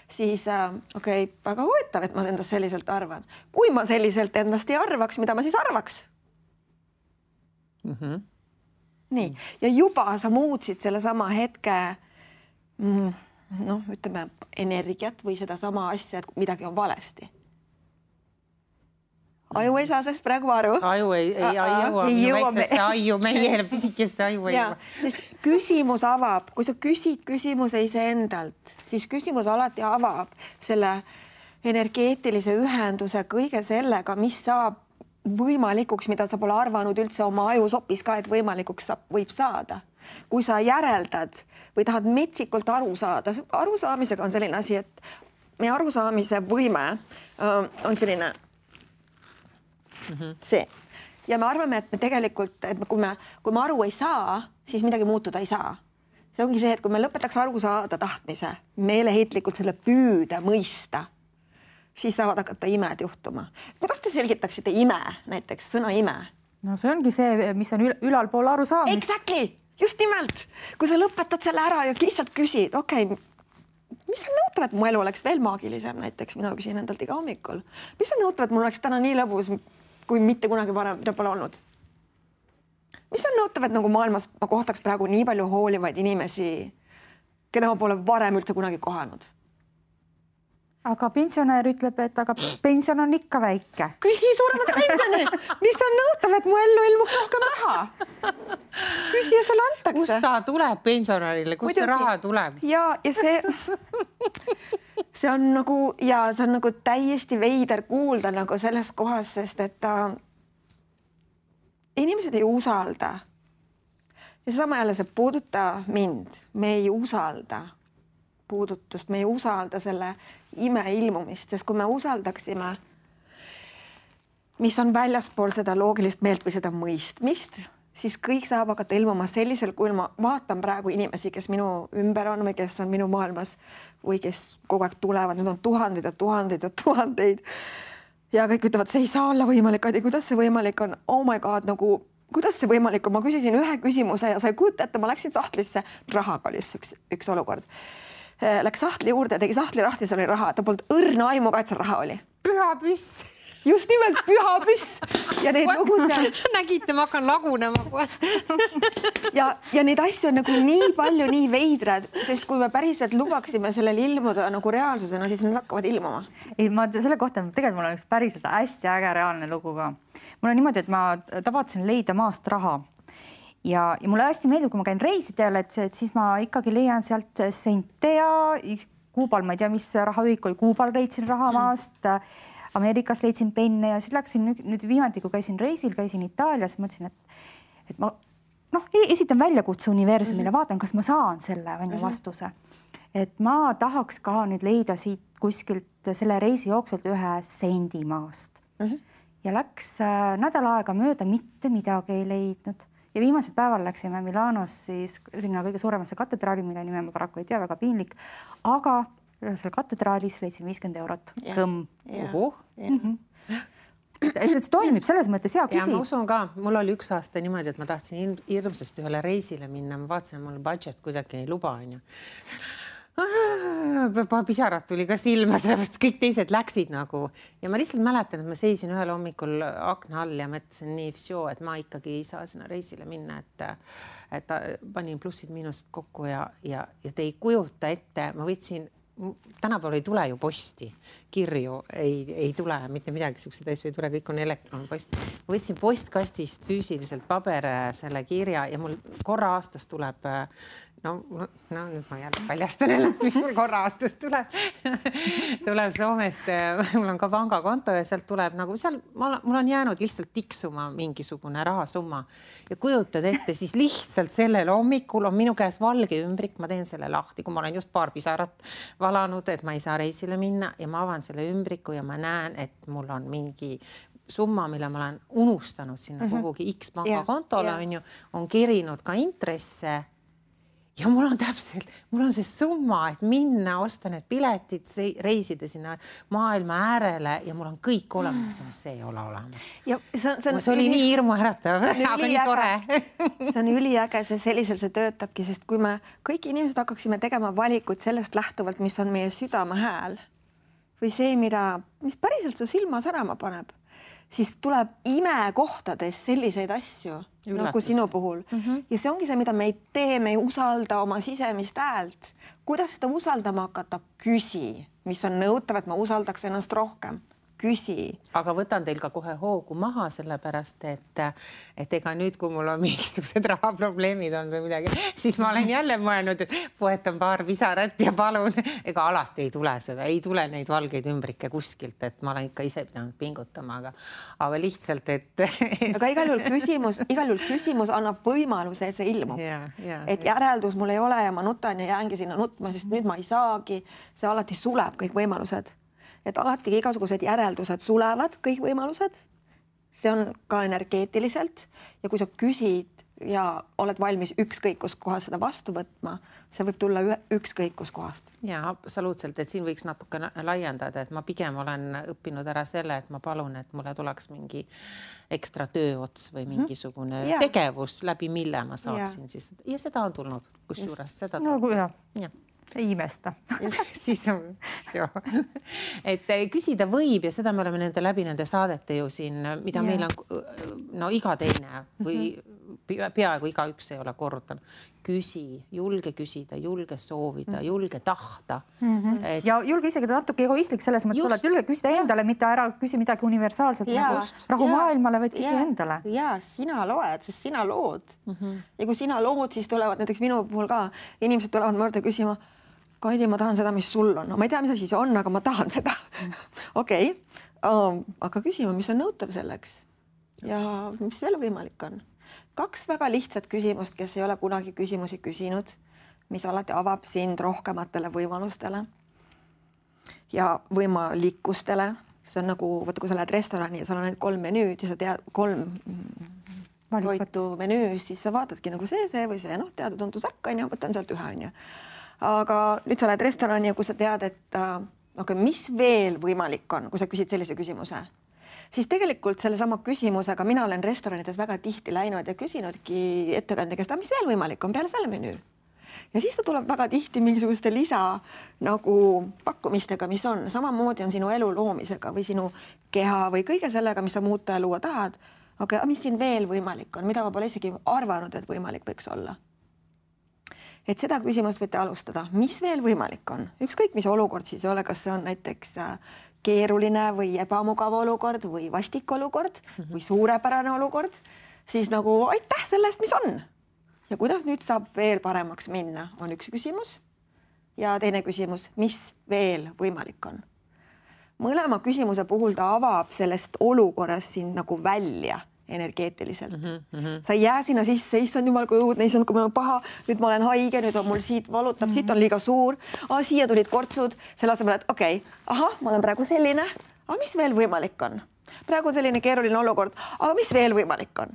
siis väga huvitav, et ma endast selliselt arvan. Kui ma selliselt endast ei arvaks, mida ma siis arvaks? Nii. Ja juba sa muutsid selle sama hetke ütleme, energiat või seda sama asja, et midagi on valesti. Aju ei saa sest praegu aru. Aju ei jõua minu väiksesse aju, meie pisikesse aju ei jõua. Küsimus avab, kui sa küsid küsimuse iseendalt, siis küsimus alati avab selle energeetilise ühenduse kõige sellega, mis saab võimalikuks, mida sa pole arvanud üldse oma ajusopis ka, et võimalikuks võib saada. Kui sa järeldad või tahad metsikult aru saada, arusaamisega on selline asi, et meie arusaamise võime on selline see. Ja me arvame, et me tegelikult, et kui me aru ei saa, siis midagi muutuda ei saa. See ongi see, et kui me lõpetaks aru saada tahtmise, meeleheitlikult selle püüda mõista, siis saavad hakata imed juhtuma. Kuidas te selgitaksite ime, näiteks sõna ime? No see ongi see, mis on ülalpool aru saamist. Exactly! Just nimelt! Kui sa lõpetad selle ära ja lihtsalt küsid, mis on nõutav, et mu elu oleks veel maagilisem, näiteks mina küsin endalt iga hommikul. Mis on nõutav, et mul oleks täna nii lõbus, kui mitte kunagi varem, mida pole olnud? Mis on nõutav, et nagu maailmas ma kohtaks praegu nii palju hoolivaid inimesi, keda ma pole varem üldse kunagi kohanud? Aga pensionär ütleb, et aga pension on ikka väike. Küsi suuremat pensioni! Mis on nõutav, et mu ellu ilmuks rohkem raha? Küsi ja sulle antakse. Kust ta tuleb pensionärile? Kust see raha tuleb? Ja see on nagu täiesti veider kuulda nagu selles kohas, sest et inimesed ei usalda. Ja sama jälle see puuduta mind. Me ei usalda puudutust, me ei usalda selle ime ilmumist, sest kui me usaldaksime, mis on väljaspool seda loogilist meelt või seda mõistmist, siis kõik saab hakata ilmuma sellisel, kui ma vaatan praegu inimesi, kes minu ümber on või kes on minu maailmas või kes kogu aeg tulevad, need on tuhandeid ja tuhandeid ja tuhandeid. Ja kõik ütlevad, see ei saa olla võimalik, Adi, kuidas see võimalik on? Oh my god, nagu, kuidas see võimalik on? Ma küsisin ühe küsimuse ja sa ei kujuta ette, ma läksin sahtlisse, rahaga oli üks olukord. Läks sahtli juurde, tegi sahtli lahti, seal oli raha, ta polnud õrna aimuga, et seal raha oli. Püha püss. Just nimelt püha püss. Ja neid lugusid... Nägite, ma hakkan lagunema. ja neid asju on nagu nii palju, nii veidrad, sest kui me päriselt lubaksime sellel ilmuda nagu reaalsusena, siis nad hakkavad ilmuma. Ei, ma selle kohta, tegelikult mul on üks päriselt hästi äge reaalne lugu ka. Mul on niimoodi, et ma tavatsin leida maast raha. Ja mulle hästi meeldib, kui ma käin reisidel, et siis ma ikkagi leian sealt sente ja Kuubal, ma ei tea, mis rahaühik oli, Kuubal leidsin raha maast. Ameerikas leidsin penne ja siis läksin nüüd viimati, kui käisin reisil, käisin Itaalias, mõtlesin, et ma esitan väljakutse universumile, vaatan, kas ma saan selle vastuse. Et ma tahaks ka nüüd leida siit kuskilt selle reisi jookselt 1 sendi maast. Ja läks nädal aega mööda, mitte midagi ei leidnud. Ja viimasel päeval läksime Milanos siis sinna kõige suuremasse katedraali, mille nime ma paraku ei tea, väga piinlik, aga seal katedraalis leidsin 50 eurot. Kõmm. Et see toimib selles mõttes hea küsi. Ja ma usun ka, mul oli 1 aasta niimoodi, et ma tahtsin hirmsasti ühele reisile minna. Ma vaatasin, mul budget kuidagi ei luba, on ju. Pisarad tuli ka silma, sellepärast kõik teised läksid nagu. Ja ma lihtsalt mäletan, et ma seisin ühel hommikul akna all ja mõtlesin nii, et ma ikkagi ei saa sinna reisile minna, et panin plussid-miinused kokku ja te ei kujuta ette, ma võtsin tänapäeval ei tule ju posti, kirju ei tule, mitte midagi, sellised asju ei tule, kõik on elektronpost. Ma võtsin postkastist füüsiliselt selle kirja ja mul korra aastas tuleb, nüüd ma jälle paljastan ennast, mis mul korra aastast tuleb. Tuleb Soomest, mul on ka pangakonto ja sealt tuleb nagu seal, mul on jäänud lihtsalt tiksuma mingisugune rahasumma ja kujutad ette, siis lihtsalt sellel hommikul on minu käes valge ümbrik, ma teen selle lahti, kui ma olen just paar pisarat valanud, et ma ei saa reisile minna ja ma avan selle ümbriku ja ma näen, et mul on mingi summa, mille ma olen unustanud sinna kuhugi X pangakontole, on kerinud ka intresse. Ja mul on see summa, et minna, osta need piletid, reisida sinna maailma äärele ja mul on kõik olemas, see ei ole olemas. See oli nii hirmu äratav, aga nii tore. See on üliäge, sellisel see töötabki, sest kui me kõik inimesed hakkaksime tegema valikut sellest lähtuvalt, mis on meie südame hääl või see, mis päriselt su silma särama paneb, siis tuleb imekohtades selliseid asju, nagu sinu puhul. Ja see ongi see, mida me ei tee, me ei usalda oma sisemist häält. Kuidas seda usaldama hakata? Küsi, mis on nõutav, et ma usaldaks ennast rohkem. Küsi. Aga võtan teil ka kohe hoogu maha, sellepärast, et ega nüüd, kui mul on mingisugused rahaprobleemid on või midagi, siis ma olen jälle mõelnud, et poetan paar pisarat ja palun, ega alati ei tule seda, ei tule neid valgeid ümbrikke kuskilt, et ma olen ikka ise pidanud pingutama, aga lihtsalt, et... Aga igal juhul küsimus annab võimaluse, et see ilmub. Et järeldus mul ei ole ja ma nutan ja jäängi sinna nutma, sest nüüd ma ei saagi, see alati suleb kõik võimalused. Et alati igasugused järeldused sulevad, kõik võimalused. See on ka energeetiliselt ja kui sa küsid ja oled valmis ükskõik kus kohas seda vastu võtma, see võib tulla ükskõik kus kohast. Ja absoluutselt, et siin võiks natuke laiendada, et ma pigem olen õppinud ära selle, et ma palun, et mulle tuleks mingi ekstra tööots või mingisugune tegevus, läbi mille ma saaksin siis. Ja seda on tulnud, kusjuures seda tuleb. Ei imesta. Siis on see. Et küsida võib ja seda me oleme nende saadete ju siin, mida meil on iga teine või peaaegu igaüks ei ole korrutanud. Küsi, julge küsida, julge soovida, julge tahta. Ja julge isegi natuke egoistlik selles mõttes olla, et julge küsida endale, mitte ära küsi midagi universaalselt nagu rahu maailmale, vaid küsi endale. Ja sina loed, sest sina lood. Ja kui sina lood, siis tulevad näiteks minu puhul ka inimesed tulevad mõrda küsima, Kaidi, ma tahan seda, mis sul on. No, ma ei tea, mis siis on, aga ma tahan seda. Okei. Aga küsima, mis on nõutav selleks ja mis veel võimalik on. 2 väga lihtsat küsimust, kes ei ole kunagi küsimusi küsinud, mis alati avab sind rohkematele võimalustele ja võimalikustele. See on nagu, kui sa lähed restorani ja seal on 3 menüüd ja sa tead 3 toitu menüüs, siis sa vaatadki nagu see või see, teada-tuntus ärk, võtan sealt ühe, on ju. Aga nüüd sa lähed restorani ja kui sa tead, et mis veel võimalik on, kui sa küsid sellise küsimuse, siis tegelikult sellesama küsimusega mina olen restoranides väga tihti läinud ja küsinudki ettekandja käest, mis veel võimalik on peale selle menüü. Ja siis ta tuleb väga tihti mingisuguste lisa nagu pakkumistega, mis on. Samamoodi on sinu elu loomisega või sinu keha või kõige sellega, mis sa muuta ja luua tahad. Aga mis siin veel võimalik on, mida ma pole isegi arvanud, et võimalik võiks olla. Et seda küsimust võite alustada. Mis veel võimalik on? Ükskõik, mis olukord siis ole, kas see on näiteks keeruline või ebamugav olukord või vastik olukord või suurepärane olukord, siis nagu aitäh sellest, mis on. Ja kuidas nüüd saab veel paremaks minna, on üks küsimus. Ja teine küsimus, mis veel võimalik on? mõlema küsimuse puhul ta avab sellest olukorrast sind nagu välja energeetiliselt. Sa ei jää sinna sisse, issand jumal, kui õudne, issand, kui mul on paha, nüüd ma olen haige, nüüd on mul siit valutab, siit on liiga suur, siia tulid kortsud, selle asemel, et okei, ma olen praegu selline, aga mis veel võimalik on? Praegu on selline keeruline olukord, aga mis veel võimalik on?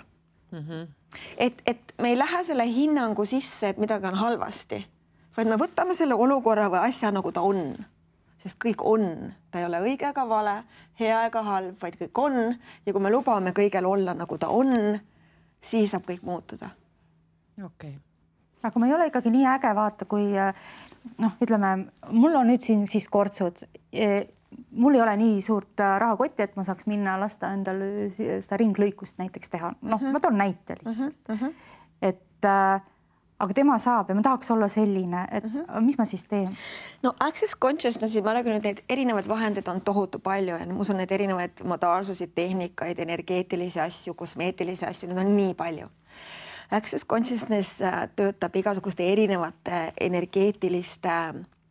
Et me ei lähe selle hinnangu sisse, et midagi on halvasti, vaid me võtame selle olukorra või asja nagu ta on. Sest kõik on, ta ei ole õige ega vale, hea ega halb, vaid kõik on. Ja kui me lubame kõigel olla nagu ta on, siis saab kõik muutuda. Okay. Aga ma ei ole ikkagi nii äge vaata, kui ütleme, mul on nüüd siin siis kortsud. Mul ei ole nii suurt rahakotti, et ma saaks minna lasta endale seda ringlõikust näiteks teha. Ma toon näite lihtsalt. Et aga tema saab ja ma tahaks olla selline, et mis ma siis teen? No Access Consciousnessi, ma räägin, et neid erinevaid vahendeid on tohutu palju ja ma usun, need erinevaid modaalsusid, tehnikaid, energeetilisi asju, kosmeetilisi asju, need on nii palju. Access Consciousness töötab igasuguste erinevate energeetiliste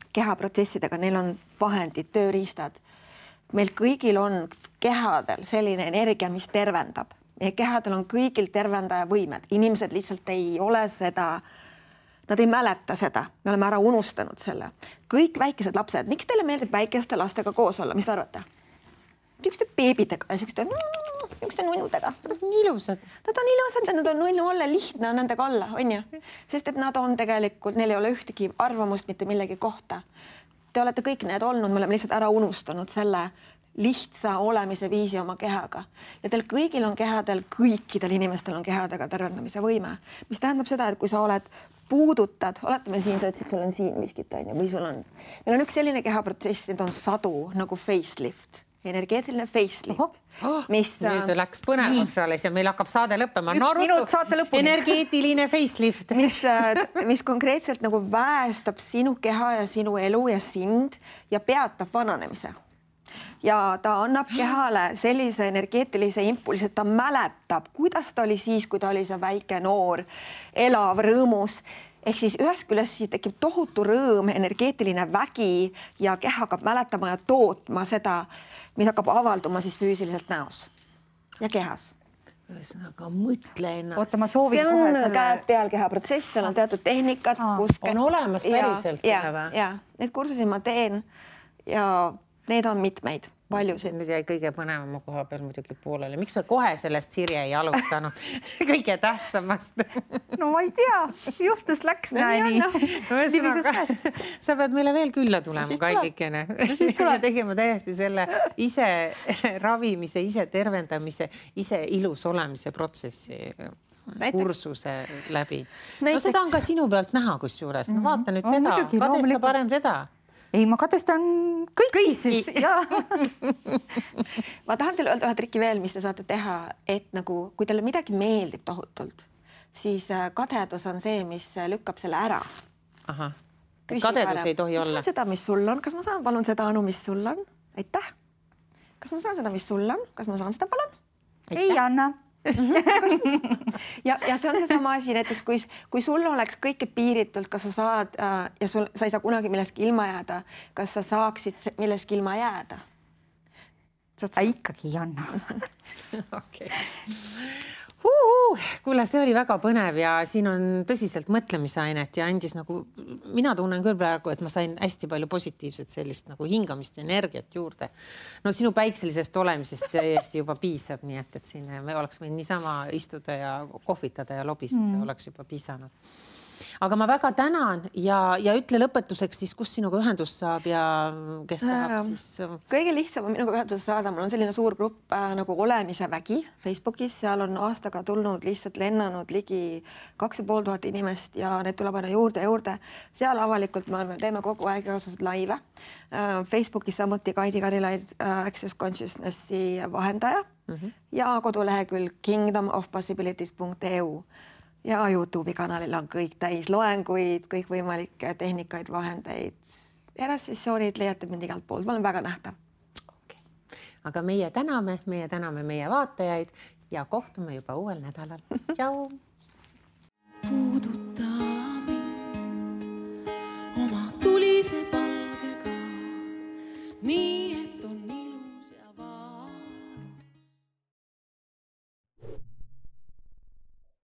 kehaprotsessidega, neil on vahendid, tööriistad. Meil kõigil on kehadel selline energia, mis tervendab. Meie kehadel on kõigil tervendaja võimed. Inimesed lihtsalt ei ole seda, nad ei mäleta seda. Me oleme ära unustanud selle. Kõik väikesed lapsed, miks teile meeldib väikeste lastega koos olla? Mis te arvate? Niisuguste beebidega ja niisuguste nunnudega. Ilusad. Nad on ilusad ja nad on nunnu olla, lihtne on nendega olla, on ju? Sest et nad on tegelikult, neil ei ole ühtegi arvamust mitte millegi kohta. Te olete kõik need olnud, me oleme lihtsalt ära unustanud selle lihtsa olemise viisi oma kehaga. Ja teil kõigil on kehadel, kõikidel inimestel on kehadega tervendamise võime. Mis tähendab seda, et kui sa oled puudutad, oletame siin, sa ütlesid, sul on siin miskit, või sul on. Meil on üks selline kehaprotsess, need on sadu nagu facelift, energeetiline facelift. Nüüd läks põnevaks alles ja meil hakkab saade lõppema. Energeetiline facelift. Mis konkreetselt nagu väestab sinu keha ja sinu elu ja sind ja peatab vananemise. Ja ta annab kehale sellise energeetilise impulsi, et ta mäletab, kuidas ta oli siis, kui ta oli see väike noor, elav, rõõmus. Ehk siis ühest küljest siis tekib tohutu rõõm, energeetiline vägi ja keha hakkab mäletama ja tootma seda, mis hakkab avalduma siis füüsiliselt näos ja kehas. Ühesõnaga, mõtle ennast. Oota, ma soovin see on käed peal kehaprotsess, seal on teatud tehnikad. On olemas päriselt. Ja, need kursusi ma teen ja need on mitmeid, paljusid. Nüüd jäi kõige põnevama koha peal muidugi poolele. Miks me kohe sellest Sirje ei alustanud? Kõige tähtsamast. No ma ei tea, juhtus läks nii. Sa pead meile veel külla tulema, Kallikene. Ja tegema täiesti selle ise ravimise, ise tervendamise, ise ilus olemise protsessi kursuse läbi. No seda on ka sinu pealt näha kusjuures. No vaata nüüd teda, kadesta parem teda. Ei, ma kadestan kõiki siis. Ma tahan teile öelda ühe trikki veel, mis te saate teha, et nagu, kui teile midagi meeldib tohutult, siis kadedus on see, mis lükkab selle ära. Aha. Kadedus ei tohi olla. Seda, mis sul on. Kas ma saan palun seda, Anu, mis sul on? Aitäh. Kas ma saan seda, mis sul on? Kas ma saan seda palun? Ei anna. ja see on seesama asi, näiteks kui sul oleks kõike piiritult, kas sa saad ja sa ei saa kunagi millestki ilma jääda, kas sa saaksid millestki ilma jääda? Ikkagi ei anna. Okay. Kuule, see oli väga põnev ja siin on tõsiselt mõtlemisainet ja andis nagu, mina tunnen küll praegu, et ma sain hästi palju positiivset sellist nagu hingamist ja energiat juurde. No sinu päikselisest olemisest täiesti juba piisab, nii et siin me oleks võinud niisama istuda ja kohvitada ja lobistada, oleks juba piisanud. Aga ma väga tänan ja ütle lõpetuseks siis, kus sinuga ühendust saab ja kes tahab siis... Kõige lihtsam on minuga ühendust saada. Mul on selline suur grupp nagu Olemise vägi Facebookis. Seal on aastaga tulnud lihtsalt lennanud ligi 2500 inimest ja need tuleb aina juurde. Seal avalikult me teeme kogu aeg igasugused laive. Facebookis samuti Kaidi Karilaid, Access Consciousnessi vahendaja ja kodulehekülg kingdomofpossibilities.eu. Ja YouTube'i kanalil on kõik täis loenguid, kõik võimalikke tehnikaid, vahendeid. Erassessioonid leiate mind igalt poolt. Ma olen väga nähtav. Okay. Aga meie täname meie vaatajaid ja kohtume juba uuel nädalal. Tšau! Puuduta mind oma tulise